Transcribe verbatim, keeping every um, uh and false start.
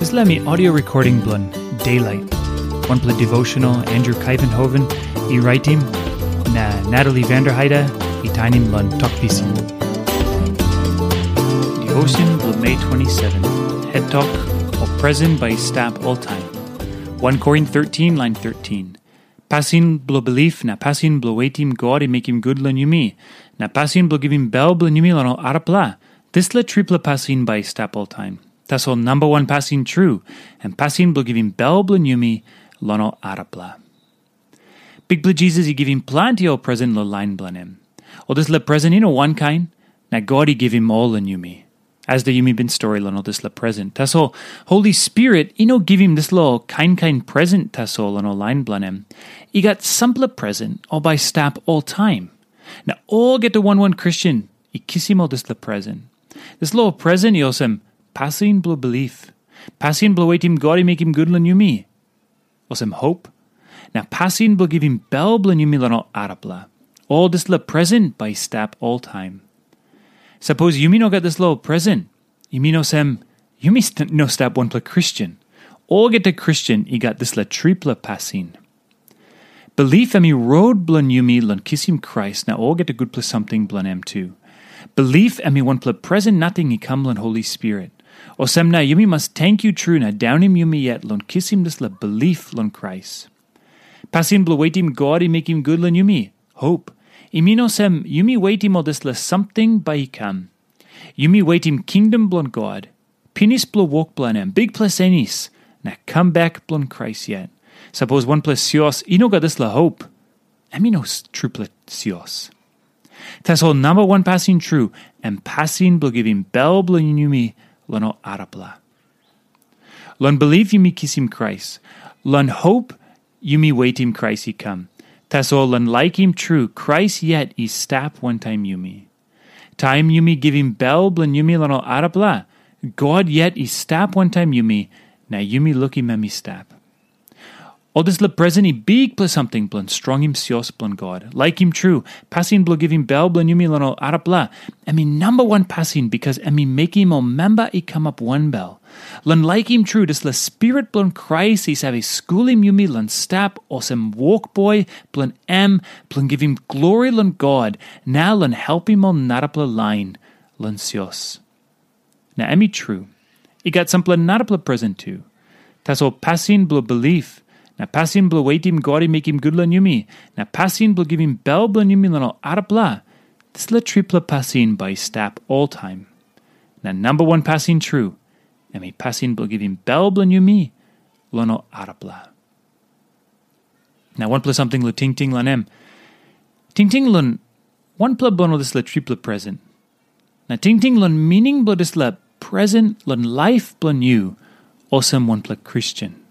Dispela mi audio recording bilong Daylight, wanpela devotional Andrew Kuyvenhoven i raitim, na Natalie Vanderheide i tainim long Tok Pisin. Devotion bilong Mei twenty-seven, head tok, o presen bai i stap oltaim. One Korin thirteen, line thirteen. Pasin bilong bilip na pasin bilong wetim God i mekim gut long yumi, na pasin bilong givim bel bilong yumi long ol arapela, dispela tripela pasin bai i stap oltaim. Tasol namba wan pasin tru, em pasin bilong givim bel bilong yumi long ol arapela. Bikpela Jisas i givim planti ol presen long lain bilong em. Ol dispela presen i no wankain, na God i givim ol long yumi. As de yumi bin stori long ol dispela presen. Tasol, Holi Spirit i no givim dispela ol kain kain presen tasol long ol lain bilong em. I gat sampela presen ol bai stap oltaim. Na olgeta wan wan Kristen i kisim ol dispela presen. Dispela ol presen i olsem pasin bilong bilip, pasin bilong wetim God i mekim gut long yumi, olsem hop, na pasin bilong givim bel bilong yumi long ol arapela. Ol dispela presen bai i stap oltaim. Sapos yumi no gat dispela ol presen, i mean olsem, yumi st- no stap wanpela Kristen. Olgeta Kristen i gat dispela tripela pasin. Bilip em i rot bilong yumi long kisim Krais na olgeta gutpela samting bilong em tu. Bilip em i wanpela presen nating i kam long Holi Spirit. Olsem na yumi mas tenkyu tru na daunim yumi yet long kisim dispela bilip long Krais. Pasin bilong wetim God i mekim gut long yumi, hop, i mean olsem yumi wetim ol dispela samting bai i kam. Yumi wetim kingdom bilong God, pinis bilong wok bilong em, bikpela senis, na kam bek bilong Krais yet. Sapos wanpela sios i no gat dispela hop, em i no s- trupela sios. Tasol namba wan pasin tru, em pasin bilong givim bel bilong yumi long ol arapela. Long bilip yumi kisim Krais. Long hop yumi wetim Krais i kam. Tasol long laikim tru Krais yet i stap wantaim yumi. Taim yumi givim bel bilong yumi long ol arapela, God yet i stap wantaim yumi, na yumi lukim em i stap. Ol dispela presen i bikpela samting bilong strongim sios bilong God. Laikim tru, pasin bilong givim bel bilong yumi long ol arapela, em i namba wan pasin bikas em i mekim ol memba i kamap wanbel. Long laikim tru, dispela Spirit bilong Krais i save skulim yumi long stap olsem wokboi bilong em, bilong givim glori long God, na long helpim ol narapela lain long sios. Na em i tru, i gat sampela narapela presen tu. Tasol pasin bilong bilip, na pasin bilong wetim God i mekim gut long yumi, na pasin bilong givim bel bilong yumi long ol arapela, dispela tripela pasin bai i stap oltaim. Na namba wan pasin tru, em i pasin bilong givim bel bilong yumi long ol arapela. Na wanpela samting long tingting long em. Tingting long wanpela bilong ol dispela tripela presen. Na tingting long mining bilong dispela presen long laip bilong yu olsem wanpela Kristen.